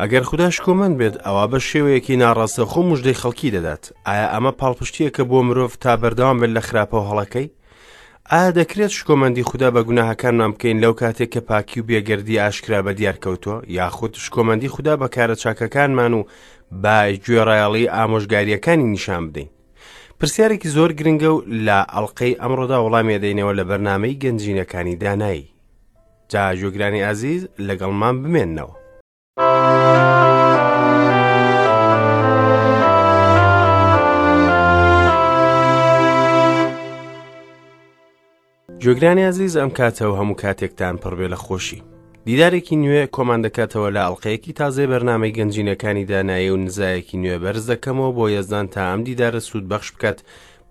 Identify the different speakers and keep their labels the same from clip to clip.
Speaker 1: ئەگەر خودا شکۆمەند بێت، ئەوا بە شێوەیەکی ناڕاستەوخۆ مژدەی خەڵکی دەدات. ئایا ئەمە پاڵپشتییەکە بۆ مرۆڤ تا بەردەوام بێت لە خراپە و هەڵەکەی؟ ئایا دەکرێت شکۆمەندی خودا بە گوناهەکانمان بکەین لەو کاتێک کە پاکی و بێگەردی ئاشکرا بە دیار کەوتووە، یاخود شکۆمەندی خودا بە کارە چاکەکانمان و بە گوێڕایەڵی ئامۆژگارییەکانی نیشان بدەین؟ پرسیارێکی زۆر گرنگە و لە ئەڵقەی ئەمڕۆدا وەڵامی دەینەوە لە بەرنامەی گەنجینەکانی دانایی. جا گوێگرانی ئازیز لەگەڵمان بمێننەوە. گوێگرانی ئازیز ئەم کاتە و هەموو کاتێکتان پڕبێ لە خۆشی. دیدارێکی نوێ کۆمان دەکاتەوە لە ئەڵلقەیەکی تازەی بەرنامەی گەنجینەکانی دانایی و نزایەکی نوێ بەرز دەکەمەوە بۆ یەزدان تا ئەم دیدارە سوود بەخش بکات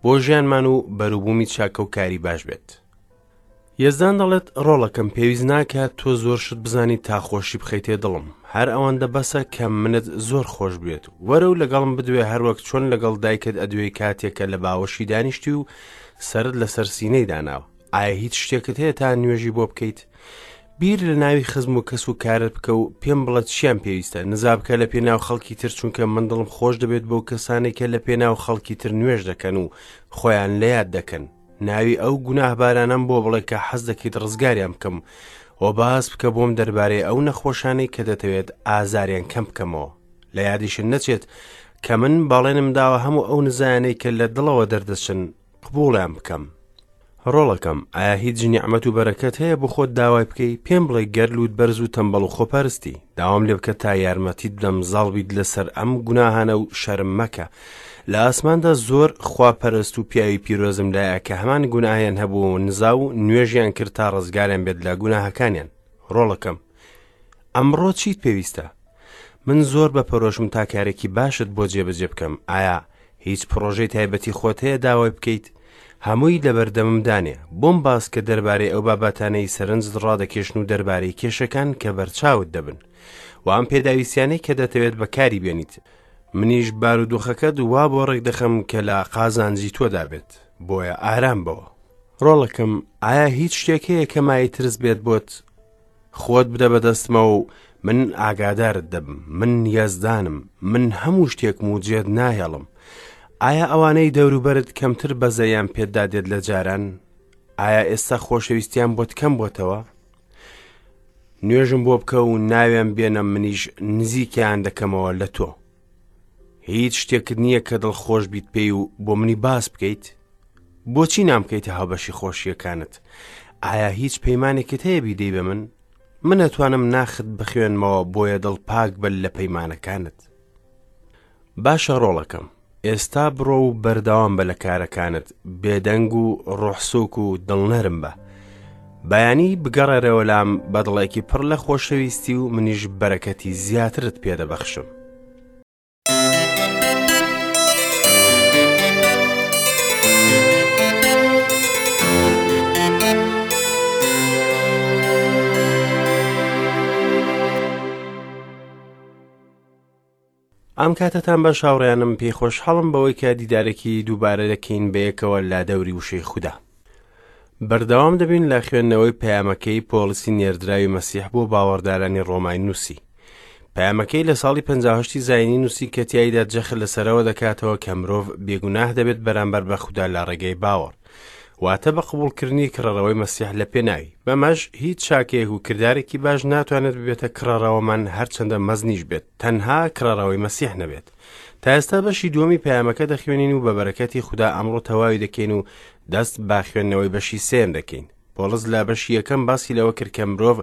Speaker 1: بۆ ژیانمان و بەروبوومی چاکە و کاری باش بێت. یەزدان دەڵێت، ڕۆڵەکەم پێویست ناکات تۆ زۆر شت بزانیت تا خۆشی بخەیتێ دڵم، هەر ئەوەندە بەسە کە منت زۆر خۆش بوێت. وەرە و لەگەڵم بدوێ هەروەک چۆن لەگەڵ دایکت ئەدوێی کاتێک کە لە باوەشی دانیشتی و سەرت لەسەر سینەی داناوە. ئایا هیچ شتێکت هەیە تا نوێژی بۆ بکەیت؟ بیر لە ناوی خزم و کەس و کارت بکە و پێم بڵێ چیان پێویستە. نزا بکە لە پێناو خەڵکی تر چونکە من دڵم خۆش دەبێت بەو کەسانەی کە لە پێناو خەڵکی تر نوێژ دەکەن و خۆیان لە یاد دەکەن. ناوی ئەو گوناهبارانەم بۆ بڵێ کە حەز دەکەیت ڕزگاریان بکەم و باس بکە بۆم دەربارەی ئەو نەخۆشانەی کە دەتەوێت ئازاریان کەم بکەمەوە لە یادیشت نەچێت کە من بەڵێنم داوە هەموو ئەو نزایانەی کە لە دڵەوە دەردەچن قبوڵیان بکەم ڕۆڵەکەم ئایا هیچ نیعمەت و بەرەکەت هەیە بۆ خۆت داوای بکەی پێم بڵێ گەر لووت بەرز و تەمبەڵ و خۆپەرستی داوام لێ بکە تا یارمەتیت بدەم زاڵ بیت لەسەر ئەم گوناهانە و شەرم مەکە لە ئاسماندا زۆر خواپەرست و پیاوی پیرۆزم لایە کە هەمان گوناهیان هەبوو و نزا و نوێژیان کرد تا ڕزگاریان بێت لە گوناهەکانیان ڕۆڵەکەم ئەمڕۆ چیت پێویستە من زۆر بە پەرۆشم تا کارێکی باشت بۆ جێبەجێ بکەم ئایا هیچ پڕۆژەی تایبەتی خۆت هەیە داوای بکەیت هەمووی لەبەردەمم دانێ بۆم باس کە دەربارەی ئەو بابەتانەی سەرنجت ڕادەکێشن و دەربارەی کێشەکان کە بەرچاوت دەبن و ئەم پێداویستیانەی کە دەتەوێت بەکاری بێنیت منیش بارودۆخەکەت وا بۆ ڕێک دەخەم کە لە قازانجی تۆدا بێت بۆیە ئارام بەوە ڕۆڵەکەم ئایا هیچ شتێک هەیە کە مای ترس بێت بۆت خۆت بدە بەدەستمەوە و من ئاگادارت دەبم من یەزدانم من هەموو شتێکم و جێت ناهێڵم ئایا ئەوانەی دەوروبەرت کەمتر بەزەیان پێتدا دێت لە جاران ئایا ئێستا خۆشەویستیان بۆت کەم بۆتەوە نوێژم بۆ بکە و ناویان بێنە منیش نزیکیان دەکەمەوە لە تۆ هیچ شتێکت نییە کە دڵخۆش بیت پێی و بۆ منی باس بکەیت بۆچی نامکەیتە هاوبەشی خۆشیەکانت ئایا هیچ پەیمانێکت هەیە بیدەی بە من من ئەتوانم ناخت بخوێنمەوە بۆیە دڵ پاک بە لە پەیمانەکانت باشە ڕۆڵەکەم ئێستا بڕۆ و بەردەوام بە لە کارەکانت بێدەنگ و ڕۆحسوک و دڵنەرم بە بەیانی بگەڕێرەوە لام بە دڵێکی پڕ لە خۆشەویستی و منیش بەرەکەتی زیاترت پێدەبەخشم. ئەم کاتەتان باش هاوڕێیانم پێی خۆشحاڵم بەوەی کە دیدارێکی دووبارە دەکەین بەیەکەوە لە دەوری وشەی خودا بەردەوام دەبین لە خوێندنەوەی پەیامەکەی پۆڵسی نێردراوی مەسیح بۆ باوەڕدارانی ڕۆمای نووسی پەیامەکەی لە ساڵی 58 زینی نووسی کە تیایدا جەخت لەسەرەوە دەکاتەوە کە مرۆڤ بێگوناه دەبێت بەرامبەر بە خودا لە ڕێگەی باوەڕ واتە بە قبوڵکردنی کڕەرەوەی مەسیح لە پێناوی بەمەش هیچ چاکەیەک و کردارێکی باش ناتوانێت ببێتە کڕەرەوەمان هەرچەندە مەزنیش بێت تەنها کڕەرەوەی مەسیح نەبێت تا ئێستا بەشی دووەمی پەیامەکە دەخوێنین و بە بەرەکەتی خودا ئەمڕۆ تەواوی دەکەین و دەست بە خوێندنەوەی بەشی سێیەم دەکەین پۆڵس لە بەشی یەکەم باسی لەوە کرد کە مرۆڤ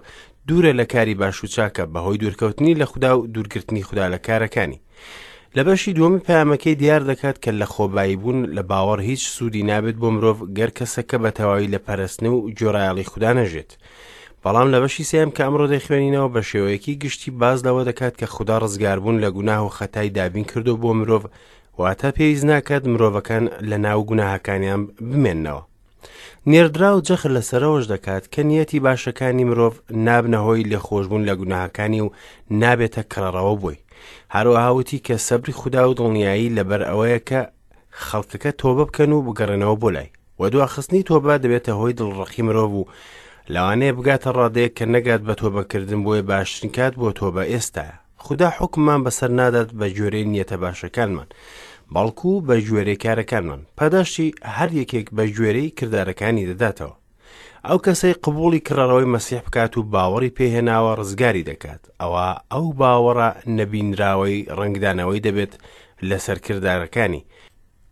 Speaker 1: دوورە لە کاری باش و چاکە بەهۆی دوورکەوتنی لە خودا و دوورگرتنی خودا لە کارەکانی لە بەشی دووەمی پەیامەکەی دیار دەکات کە لە خۆبایی بوون لە باوەڕ هیچ سوودی نابێت بۆ مرۆڤ گەر کەسەکە بە تەواوی لە پەرستن و گوێڕایەڵی خودا نەژێت بەڵام لە بەشی سێم کە ئەمڕۆ دەیخوێنینەوە بە شێوەیەکی گشتی باز لەوە دەکات کە خودا ڕزگاربوون لە گوناه و خەتای دابین کردو بۆ مرۆڤ واتە پێویست ناکات مرۆڤەکان لە ناو گوناهەکانیان بمێننەوە نێردراو جەخت لەسەرەوەش دەکات کە نیەتی باشەکانی مرۆڤ نابنە هۆی لێخۆشبوون لە گوناهەکانی و نابێتە کڕەڕەوە بۆی. هەروەها وتی کە سەبری خودا و دڵنیایی لەبەر ئەوەیە کە خەڵکەکە تۆبە بکەن و بگەڕێنەوە بۆ لای. وە دواخستنی تۆبە دەبێتە هۆی دڵڕەقی مرۆڤ و لەوانەیە بگاتە ڕادەیەک کە نەگات بە تۆبەکردن بۆیە باشترین کات بۆ تۆبە ئێستایە. خودا حوکممان بەسەر نادات بە گوێرەی نیەتە باشەکانمان، بەڵکو بە گوێرەی کارەکانمان. پاداشتی هەر یەکێک بە گوێرەی کردارەکانی دەداتەوە. ئەو کەسەی قبوڵی کڕەرەوەی مەسیح بکات و باوەڕی پێهێناوە ڕزگاری دەکات، ئەوا ئەو باوەڕە نەبینراوەی ڕەنگدانەوەی دەبێت لەسەر کردارەکانی.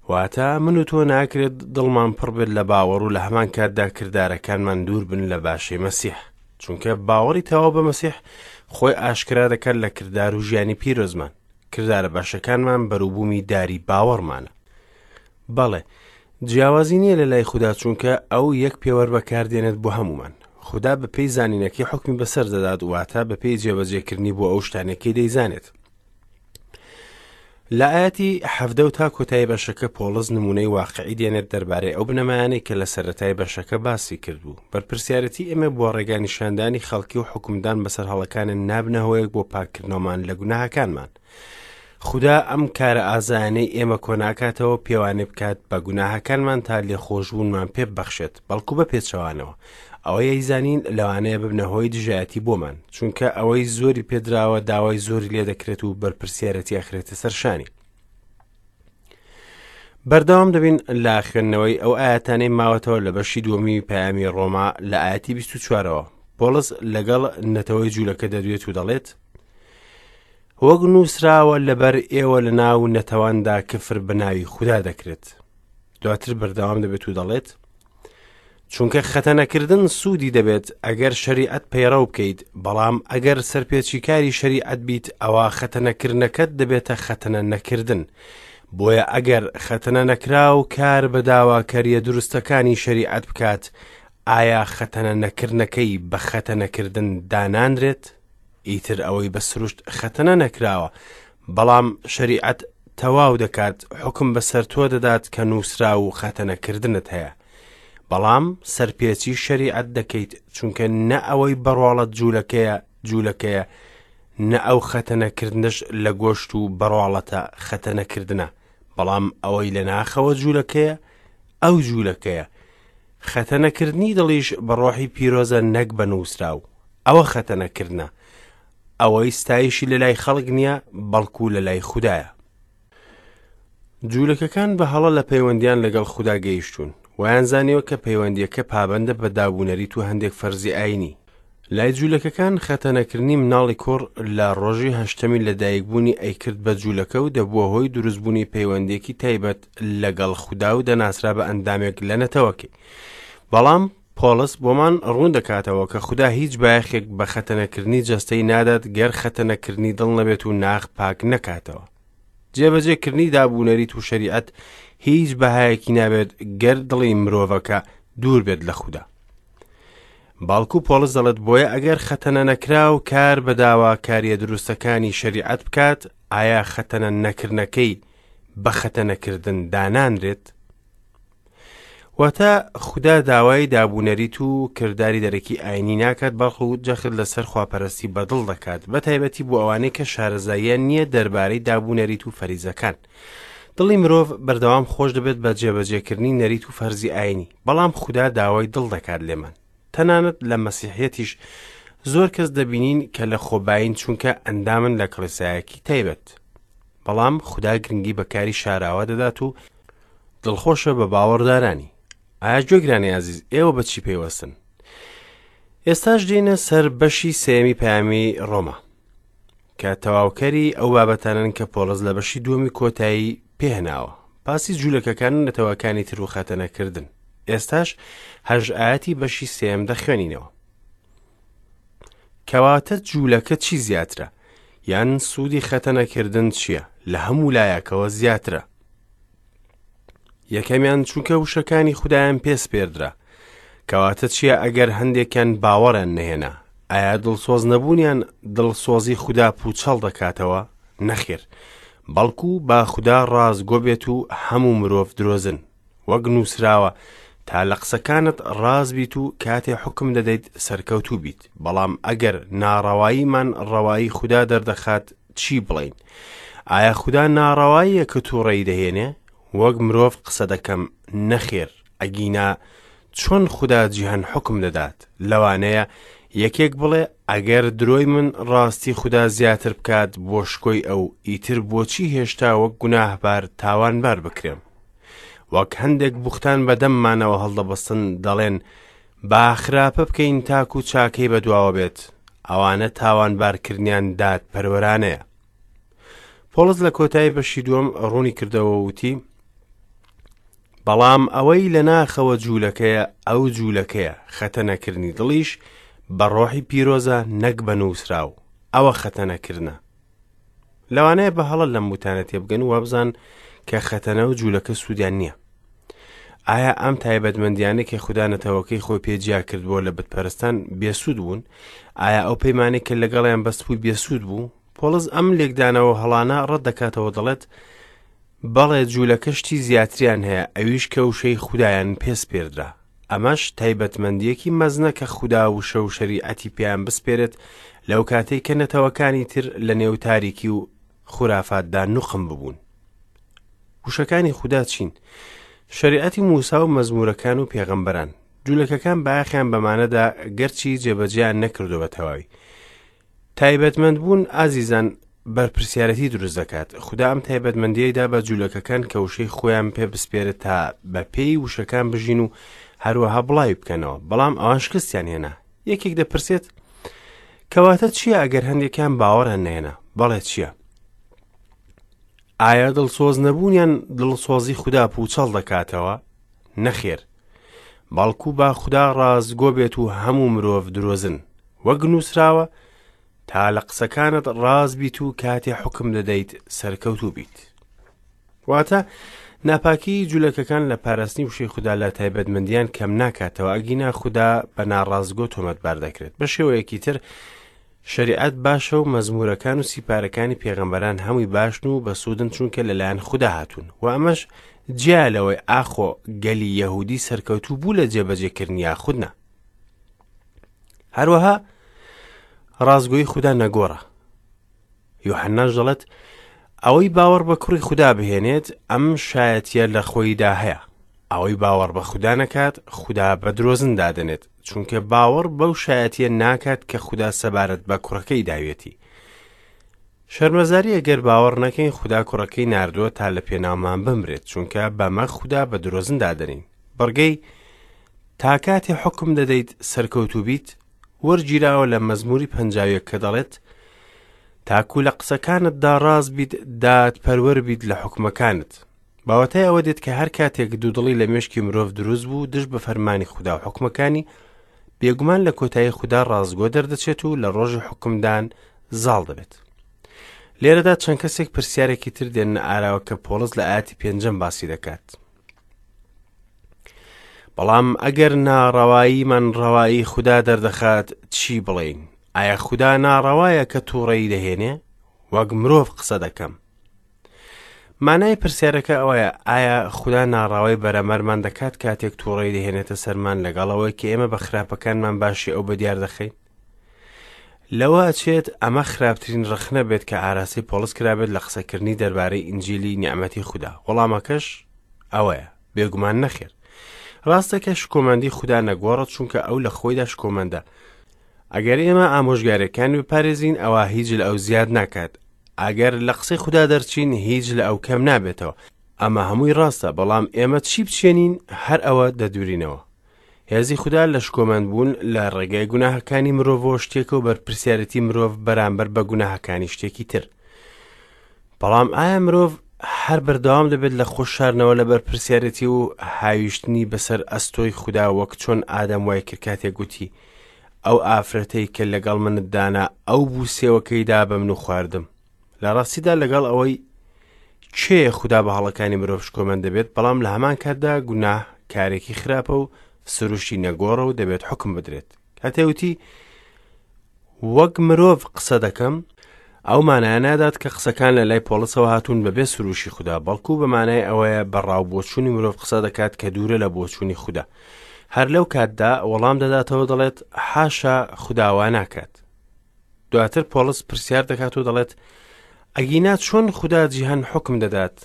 Speaker 1: واتە من و تۆ ناکرێت دڵمان پڕ بێت لە باوەڕ و لە هەمان کاتدا کردارەکانمان دوور بن لە باشەی مەسیح. چونکە باوەڕی تەواو بە مەسیح خۆی ئاشکرا دەکات لە کردار و ژیانی پیرۆزمان. کردارە باشەکانمان بەروبوومی داری باوەڕمانە. بەڵێ، جیاوازی نییە لە لای خودا چونکە ئەو یەک پێوەر بەکاردێنێت بۆ هەموومان. خودا بەپێی زانینەکەی حوکمی بەسەر دەدات، واتە بەپێی جێبەجێکردنی بۆ ئەو شتانەی دەیزانێت. لە ئاەتی حەڤدە و تا کۆتایی بەشەکە پۆڵس نمونەی واقعی دێنێت دەربارەی ئەو بنەمایانەی کە لە سەرەتای بەشەکە باسی کردبوو. بەرپرسیارەتی ئێمە بۆ ڕێگا نیشاندانی خەڵکی و حوکمدان بەسەر هەڵەکانن نابنە هۆیەک بۆ پاککردنەوەمان لە گوناهەکانمان. خودا ئەم کارە ئازایانەی ئێمە کۆناکاتەوە پێوانێ بکات بە گوناهەکانمان تا لێخۆشبوونمان پێ ببەخشێت، بەڵکو بە پێچەوانەوە ئەوەی ئەیزانین لەوانەیە ببنە هۆی دژایەتی بۆمان، چونکە ئەوەی زۆری پێدراوە داوای زۆری لێ دەکرێت و بەرپرسیارەتی ئەخرێتە سەر شانی. بەردەوام دەبین لە خوێندنەوەی ئەو ئاەتانەی ماوەتەوە لە بەشی دووەمی پەیامی ڕۆما لە ئاەتی 24ەوە. پۆڵس لەگەڵ نەتەوەی جوولەکە دەدوێت و دەڵێت وەک نووسراوە لەبەر ئێوە لە ناو نەتەواندا کفر بە ناوی خودا دەکرێت. دواتر بەردەوام دەبێت و دەڵێت چونکە خەتەنەکردن سوودی دەبێت ئەگەر شەریعەت پەیڕەو بکەیت، بەڵام ئەگەر سەرپێچیکاری شەریعەت بیت ئەوا خەتەنەکردنەکەت دەبێتە خەتەنە نەکردن. بۆیە ئەگەر خەتەنە نەکراو کار بە داواکەریە دروستەکانی شەریعەت بکات، ئایا خەتەنە نەکردنەکەی بە خەتەنەکردن دانانرێت؟ ئیتر ئەوەی بە سروشت خەتەنە نەکراوە، بەڵام شەریعەت تەواو دەکات، حوکم بەسەر تۆ دەدات کە نووسراو و خەتەنەکردنت هەیە. بەڵام سەرپێچی شەریعەت دەکەیت، چونکە نە ئەوەی بەڕواڵەت جوولەکەیە، جوولەکەیە، نە ئەو خەتەنەکردنەش لە گۆشت و بەڕواڵەتە خەتەنەکردنە، بەڵام ئەوەی لە ناخەوە جوولەکەیە، ئەو جوولەکەیە. خەتەنەکردنی دڵیش بە ڕۆحی پیرۆزە نەک بە نووسراو. ئەوە خەتەنەکردنە. ئەوەی ستایشی لە لای خەڵک نییە، بەڵکو لە لای خودایە. جوولەکەکان بە هەڵە لە پەیوەندیان لەگەڵ خودا گەیشتوون. وایان زانیوە کە پەیوەندییەکە پابەندە بە دابونەریت و هەندێک فەرزی ئایینی. لای جوولەکەکان خەتەنەکردنی مناڵی کوڕ لە ڕۆژی هەشتەمی لەدایکبوونی ئەیکرد بە جوولەکە و دەبووە هۆی دروستبوونی پەیوەندییەکی تایبەت لەگەڵ خودا و دەناسرا بە ئەندامێک لە نەتەوەکەی. بەڵام پۆڵس بۆمان ڕوون دەکاتەوە کە خودا هیچ بایەخێک بە خەتەنەکردنی جەستەی نادات گەر خەتەنەکردنی دڵ نەبێت و ناخ پاک نەکاتەوە. جێبەجێکردنی دابونەریت و شەریعەت هیچ بەهایەکی نابێت گەر دڵی مرۆڤەکە دوور بێت لە خودا. بەڵکو پۆڵس دەڵێت بۆیە ئەگەر خەتەنە نەکراو کار بە داواکاریە دروستەکانی شەریعەت بکات، ئایا خەتەنە نەکردنەکەی بە خەتەنەکردن دانانرێت؟ واتە خودا داوای دابونەریت و کرداری دەرەکی ئاینی ناکات بەڵکو جەخت لەسەر خواپەرستی بەدڵ دەکات بە تایبەتی بۆ ئەوانەی کە شارەزاییان نییە دەربارەی دابونەریت و فەریزەکان دڵی مرۆڤ بەردەوام خۆش دەبێت بە جێبەجێکردنی نەریت و فەرزی ئاینی بەڵام خودا داوای دڵ دەکات لێمان تەنانەت لە مەسیحیەتیش زۆر کەس دەبینین کە لە خۆبایین چونکە ئەندامن لە کڵێسایەکی تایبەت بەڵام خودا گرنگی بە کاری شاراوە دەدات و دڵخۆشە بە باوەڕدارانی. ئایا گوێگرانی ئازیز ئێوە بە چی پەیوەستن؟ ئێستاش دێینە سەر بەشی سێیەمی پەیامی ڕۆما کە تەواوکەری ئەو بابەتانن کە پۆڵس لە بەشی دووەمی کۆتایی پێهناوە باسی جوولەکەکان و نەتەوەکانی تر و خەتەنەکردن ئێستاش هەژ ئاەتی بەشی سێم دەخوێنینەوە کەواتە جوولەکە چی زیاترە یان سوودی خەتەنەکردن چییە لە هەموو لایەکەوە زیاترە یەکەمیان چونکە وشەکانی خودایان پێ سپێردرا کەواتە چییە ئەگەر هەندێکیان باوەڕیان نەهێنا ئایا دڵسۆز نەبوونیان دڵسۆزی خودا پوچەڵ دەکاتەوە نەخێر بەڵکو با خودا ڕاستگۆ بێت و هەموو مرۆڤ درۆزن وەک نووسراوە تا لە قسەکانت ڕاست بیت و کاتێ حوکم دەدەیت سەرکەوتوو بیت بەڵام ئەگەر ناڕەواییمان ڕەوایی خودا دەردەخات چی بڵێین ئایا خودا ناڕەواییە کە تووڕەیی دەهێنێ وەک مرۆڤ قسە دەکەم نەخێر ئەگینا چۆن خودا جیهان حوکم دەدات لەوانەیە یەکێک بڵێ ئەگەر درۆی من ڕاستی خودا زیاتر بکات بۆ شکۆی ئەو، ئیتر بۆچی هێشتا وەک گوناهبار تاوانبار بکرێم؟ وەک هەندێک بوختان بە دەممانەوە هەڵدەبەستن دەڵێن با خراپە بکەین تاکو چاکەی بەدواوە بێت، ئەوانە تاوانبارکردنیان دادپەروەرانەیە. پۆڵس لە کۆتایی بەشی دووەم ڕوونی کردەوە وتی بەڵام ئەوەی لە ناخەوە جوولەکەیە ئەو جوولەکەیە خەتەنەکردنی دڵیش بە ڕۆحی پیرۆزە نەک بە نووسراو ئەوە خەتەنەکردنە لەوانەیە بە هەڵە لەم وتانە تێبگەن و وابزان کە خەتەنە و جوولەکە سوودیان نییە ئایا ئەم تایبەتمەندیانە کە خودا نەتەوەکەی خۆی پێ جیا کردبووە لە بتپەرستان بێسوود بوون؟ ئایا ئەو پەیمانەی کە لەگەڵیان بەستبووی بێسوود بوو؟ پۆڵس ئەم لێکدانەوە هەڵانە ڕەت دەکاتەوە دەڵێت بەڵێ جوولەکە شتی زیاتریان هەیە ئەویش کە وشەی خودایان پێ سپێردرا ئەمەش تایبەتمەندیەکی مەزنە کە خودا وشە و شەریعەتی پێیان بسپێرێت لەو کاتەی کە نەتەوەکانی تر لە نێو تاریکی و خورافاتدا نوقم ببوون. وشەکانی خودا چین؟ شەریعەتی موسا و مەزمورەکان و پێغەمبەران. جولەکەکان بایەخیان بەمانەدا گەرچی جێبەجێیان نەکردو بە تەواوی. تایبەتمەند بوون ئازیزان بەرپرسیارەتی دروست دەکات. خودا ئەم تایبەتمەندیەی دا بە جولەکەکان کە وشەی خۆیان پێ بسپێرێت تا بە پێی وشەکان بژین و هەروەها بڵاوی بکەنەوە، بەڵام ئەوان شکستیان هێنا. یەکێک دەپرسێت کەواتە چییە ئەگەر هەندێکیان باوەڕیان نەهێنا؟ بەڵێ چییە؟ ئایا دڵسۆز نەبوونیان دڵسۆزی خودا پوچەڵ دەکاتەوە؟ نەخێر. بەڵکو با خودا ڕاستگۆ بێت و هەموو مرۆڤ درۆزن. وەک نووسراوە، تا لە قسەکانت ڕاست بیت و کاتێ حوکم دەدەیت سەرکەوتوو بیت. واتە ناپاکی جولەکەکان لە پاراستنی وشەی خودا لە تایبەتمەندیان کەم ناکاتەوە ئەگینا خودا بە ناڕاستگۆ تۆمەتبار دەکرێت بە شێوەیەکی تر شەریعەت باشە و مەزمورەکان و سیپارەکانی پێغەمبەران هەمووی باشن و بەسوودن چونکە لەلایەن خودا هاتوون و ئەمەش جیا لەوەی ئاخۆ گەلی یەهودی سەرکەوتوو بوو لە جێبەجێکردنی یاخود نا هەروەها ڕاستگۆی خودا نەگۆڕە یوحەناش دەڵێت، ئەوەی باوەڕ بە کوڕی خودا بهێنێت، ئەم شایەتییە لە خۆیدا هەیە. ئەوەی باوەڕ بە خودا نەکات، خودا بە درۆزن دادەنێت، چونکە باوەڕ بەو شایەتییە ناکات کە خودا سەبارەت بە کوڕەکەی داویەتی. شەرمەزارییە گەر باوەڕ نەکەین خودا کوڕەکەی ناردووە تا لە پێناومان بمرێت، چونکە بەمە خودا بە درۆزن دادەنێین. بڕگەی، تا کاتێ حوکم دەدەیت سەرکەوتوو بیت، وەرگیراوە لە مەزموری 51 کە دەڵێت تاکو لە قسەکانتدا ڕاست بیت دادپەروەر بیت لە حکومەکانت باوەتای ئەوە دێت کە هەر کاتێک دوودڵی لە مێشکی مرۆڤ دروست بوو دژ بە فەرمانی خودا و حکومەکانی بێگومان لە کۆتایی خودا ڕاستگۆ دەردەچێت و لە ڕۆژی حکومدان زاڵ دەبێت لێرەدا چەند کەسێک پرسیارێکی تر دێنە ئاراوە کە پۆڵس لە ئاەتی پێنجەم باسی دەکات بەڵام ئەگەر ناڕەواییمان ڕەوایی خودا دەردەخات چی بڵێین؟ ئایا خودا ناڕەوایە کە تووڕەیی دەهێنێ؟ وەک مرۆڤ قسە دەکەم. مانای پرسیارەکە ئەوەیە ئایا خودا ناڕاوای بەرەمەرمان دەکات کاتێک تووڕەی دەهێنێتە سەرمان لەگەڵ ئەوەی کە ئێمە بە خراپەکانمان باشی ئەو بەدیار دەخەین؟ لەوە ئەچێت ئەمە خراپترین ڕەخنە بێت کە ئاراستەی پۆڵس کرابێت لە قسەکردنی دەربارەی ئینجیلی نیعمەتی خودا. وەڵامەکەش ئەوەیە، بێگومان نەخێر. ڕاستە کە شکۆمەندی خودا نەگۆڕە چونکە ئەو لە خۆیدا شکۆمەندە. ئەگەر ئێمە ئامۆژگاریەکانی بپارێزین ئەوا هیچ لە ئەو زیاد ناکات. ئەگەر لە قسەی خودا دەرچین هیچ لە ئەو کەم نابێتەوە. ئەمە هەمووی ڕاستە، بەڵام ئێمە چی بچێنین هەر ئەوە دەدورینەوە. هێزی خودا لە شکۆمەند بوون لە ڕێگای گوناهەکانی مرۆڤەوە شتێکە و بەرپرسیارێتی مرۆڤ بەرامبەر بە گوناهەکانی شتێکی تر. بەڵام ئایا مرۆڤ هەر بەردەوام دەبێت لە خۆ شارنەوە لە بەرپرسیارێتی و هاویشتنی بەسەر ئەستۆی خودا وەک چۆن ئادەم وای کرد کاتێک گوتی ئەو ئافرەتەی کە لەگەڵ منت دانا ئەو بوو سێوەکەی دا بە من و خواردم لە ڕاستیدا لەگەڵ ئەوەی کێیە خودا بە هەڵەکانی مرۆڤ شکۆمەند دەبێت بەڵام لە هەمان کاتدا گوناه کارێکی خراپە و سروشتی نەگۆڕە و دەبێت حکم بدرێت کاتێ وتی وەک مرۆڤ قسە دەکەم ئەو مانایە نادات کە قسەکان لە لای پۆڵسەوە هاتوون بەبێ سروشی خودا بەڵکو بە مانای ئەوەیە بە ڕاو بۆچوونی مرۆڤ قسە دەکات کە دوورە لە بۆچوونی خودا هەر لەو کاتدا وەڵام دەداتەوە دەڵێت حاشا خوداوا ناکات دواتر پۆڵس پرسیار دەکات و دەڵێت ئەگینا چۆن خودا جیهان حوکم دەدات؟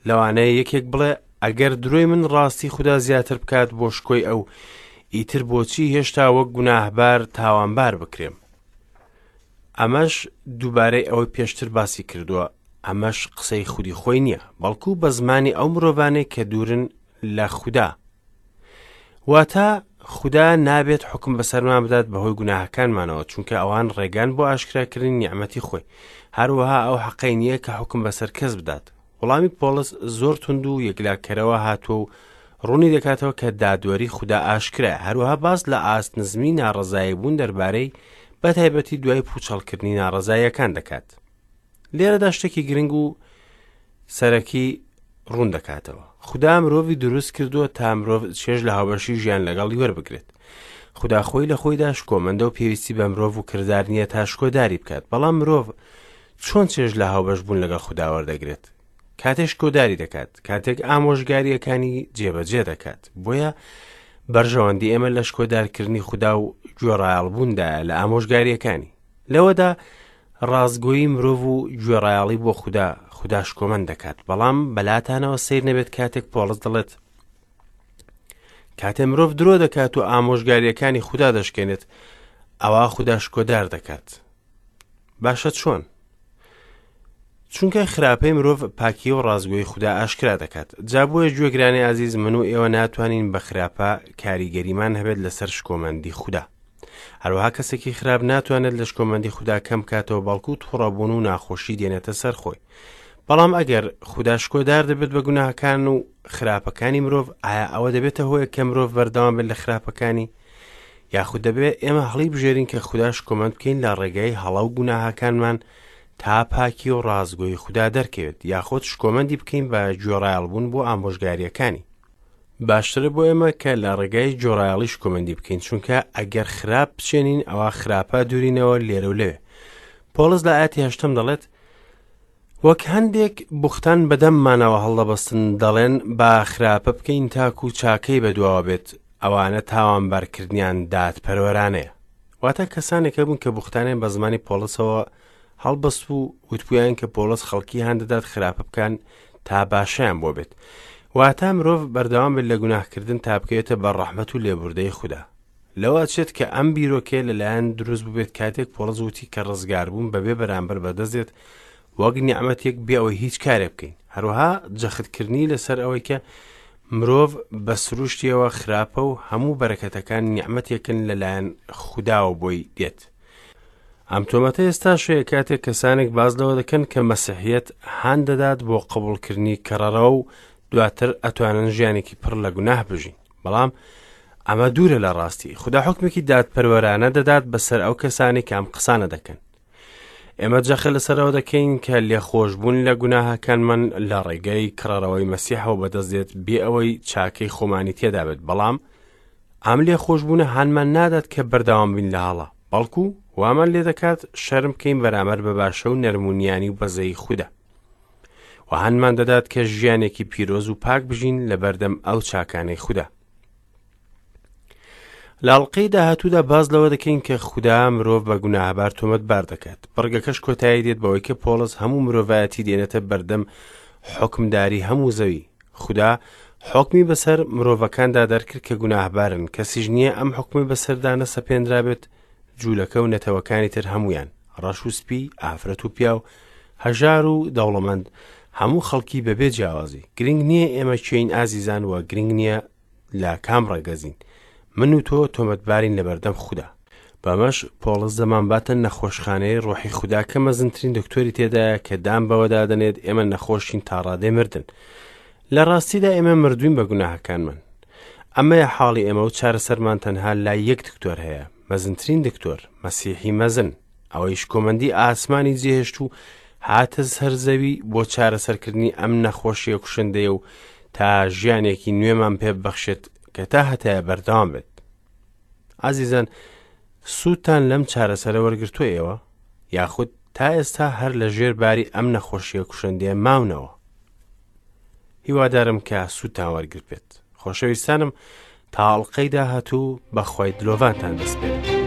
Speaker 1: لەوانەیە یەکێک بڵێ ئەگەر درۆی من ڕاستی خودا زیاتر بکات بۆ شکۆی ئەو، ئیتر بۆچی هێشتا وەک گوناهبار تاوانبار بکرێم؟ ئەمەش دووبارەی ئەوەی پێشتر باسی کردووە، ئەمەش قسەی خودی خۆی نییە، بەڵکو بە زمانی ئەو مرۆڤانەی کە دوورن لە خودا. واتە خودا نابێت حوکم بەسەرمان بدات بەهۆی گوناهەکانمانەوە، چونکە ئەوان ڕێگان بۆ ئاشکراکردنی نیعمەتی خۆی. هەروەها ئەو حەقەی نییە کە حوکم بەسەر کەس بدات. وەڵامی پۆڵس زۆر توند و یەکلاکەرەوە هاتووە و ڕوونی دەکاتەوە کە دادوەری خودا ئاشکرایە، هەروەها باس لە ئاست نزمی ناڕەزایی بوون دەربارەی بە تایبەتی دوای پوچەڵکردنی ناڕەزاییەکان دەکات. لێرەدا شتێکی گرنگ و سەرەکی ڕوون دەکاتەوە. خودا مرۆڤی دروست کردووە تا مرۆڤ چێژ لە هاوبەشی ژیان لەگەڵی وەربگرێت. خودا خۆی لە خۆیدا شکۆمەندە و پێویستی بە مرۆڤ و کردار نییە تا شکۆداری بکات، بەڵام مرۆڤ چۆن چێژ لە هاوبەش بوون لەگەڵ خودا وەردەگرێت؟ کاتێک شکۆداری دەکات، کاتێک ئامۆژگارییەکانی جێبەجێ دەکات. بۆیە بەرژەوەندی ئێمە لە شکۆدارکردنی خودا و گوێڕایەڵبووندایە لە ئامۆژگارییەکانی. لەوەدا ڕاستگۆیی مرۆڤ و گوێڕایەڵی بۆ خودا، خودا شکۆمەند دەکات. بەڵام بەلاتانەوە سەیر نەبێت کاتێک پۆڵس دەڵێت کاتێ مرۆڤ درۆ دەکات و ئامۆژگارییەکانی خودا دەشکێنێت، ئەوا خودا شکۆدار دەکات. باشە چۆن؟ چونکە خراپەی مرۆڤ پاکی و ڕاستگۆی خودا ئاشکرا دەکات. جا بۆیە گوێگرانی ئازیز من و ئێوە ناتوانین بە خراپە کاریگەریمان هەبێت لەسەر شکۆمەندی خودا. هەروەها کەسێکی خراپ ناتوانێت لە شکۆمەندی خودا کەم بکاتەوە بەڵکو توڕەبوون و ناخۆشی دێنێتە سەر خۆی. بەڵام ئەگەر خودا شکۆدار دەبێت بە گوناهەکان و خراپەکانی مرۆڤ ئایا ئەوە دەبێتە هۆیە کە مرۆڤ بەردەوام بێت لە خراپەکانی؟ یاخود دەبێت ئێمە هەڵی بژێرین کە خودا شکۆمەند بکەین لە ڕێگای هەڵە و گوناهەکانمان تا پاکی و ڕاستگۆی خودا دەرکەوێت یاخود شکۆمەندی بکەین بە گوێڕایەڵبوون بۆ ئامۆژگاریەکانی. باشترە بۆ ئێمە کە لە ڕێگای گوێڕایەڵی شکۆمەندی بکەین چونکە ئەگەر خراپ بچێنین ئەوا خراپە دوورینەوە لێرە و لەوێ. پۆڵس لە ئاەتی هەشتەم دەڵێت وەک هەندێک بوختان بە دەممانەوە هەڵدەبەستن دەڵێن با خراپە بکەین تاکو چاکەی بەدواوە بێت ئەوانە تاوانبارکردنیان دادپەروەرانەیە. واتە کەسانێک هەبوون کە بوختانیان بە زمانی پۆڵسەوە هەڵبەست و وتبوویان کە پۆڵس خەڵکی هان دەدات خراپە بکەن تا باشیان بۆ بێت. واتە مرۆڤ بەردەوام بێت لە گوناهکردن تا بکەوێتە بەر ڕەحمەت و لێبوردەی خودا. لەوە ئەچێت کە ئەم بیرۆکەیە لەلایەن دروست بووبێت کاتێک پۆڵس وتی کە ڕزگاربوون بەبێ بەرامبەر بەدەست دێت وەک نیعمەتێک بێ ئەوەی هیچ کارێک بکەین. هەروەها جەختکردنی لەسەر ئەوەی کە مرۆڤ بە سروشتیەوە خراپە و هەموو بەرەکەتەکان نیعمەتێکن لەلایەن خوداوە بۆی دێت. ئەم تۆمەتە ئێستاش هەیە کاتێک کەسانێک باس لەوە دەکەن کە مەسیحیەت هان دەدات بۆ قبوڵکردنی کەڕەرەوە و دواتر ئەتوانن ژیانێکی پڕ لە گوناه بژین. بەڵام ئەمە دوورە لە ڕاستی. خودا حوکمێکی دادپەروەرانە دەدات بەسەر ئەو کەسانەی کە ئەم قسانە دەکەن. ئێمە جەخت لەسەرەوە دەکەین کە لێخۆشبوون لە گوناهەکانمان لە ڕێگەی کڕەرەوەی مەسیحەوە بەدەست دێت بێ ئەوەی چاکەی خۆمانی تێدا بێت بەڵام ئەم لێخۆشبوونە هانمان نادات کە بەردەوام بین لە هەڵە بەڵکو وامان لێ دەکات شەرم بکەین بەرامبەر بە باشە و نەرمونیانی و بەزەیی خودا و هانمان دەدات کە ژیانێکی پیرۆز و پاک بژین لە بەردەم ئەو چاکانەی خودا لە ئەڵقەی داهاتوودا باس لەوە دەکەین کە خودا مرۆڤ بە گوناهبار تۆمەتبار دەکات. بڕگەکەش کۆتایی دێت بەوەی کە پۆڵس هەموو مرۆڤایەتی دێنێتە بەردەم حوکمداری هەموو زەوی. خودا حوکمی بەسەر مرۆڤەکاندا دەرکرد کە گوناهبارن، کەسیش نییە ئەم حوکمەی بەسەردا نەسەپێنرابێت، جوولەکە و نەتەوەکانی تر هەموویان، ڕەش و سپی، ئافرەت و پیاو، هەژار و دەوڵەمەند، هەموو خەڵکی بەبێ جیاوازی. گرنگ نییە ئێمە کێین ئازیزان و گرنگ نییە لە کام ڕەگەزین من و تۆ تۆمەتبارین لەبەردەم خودا بەمەش پۆڵس دەمانباتە نەخۆشخانەی ڕۆحی خودا کە مەزنترین دکتۆری تێدایە کە دان بەوەدا دەنێت ئێمە نەخۆشین تا ڕادەی مردن لە ڕاستیدا ئێمە مردوین بە گوناهەکانمان ئەمەیە حاڵی ئێمە و چارەسەرمان تەنها لای یەک دکتۆر هەیە مەزنترین دکتۆر مەسیحی مەزن ئەوەی شکۆمەندی ئاسمانی جێهێشت و هاتە سەر زەوی بۆ چارەسەرکردنی ئەم نەخۆشیە کوشندەیە و تا ژیانێکی نوێمان پێ ببەخشێت کە تا هەتایە بەردەوام بێت. ئازیزان سوودتان لەم چارەسەرە وەرگرتووە ئێوە؟ یاخود تا ئێستا هەر لە ژێر باری ئەم نەخۆشیە کوشندەیە ماونەوە؟ هیوادارم کە سوودتان وەرگرت بێت. خۆشەویستانم تا ئەڵقەی داهاتوو بەخوای دلۆڤانتان دەسپێرم.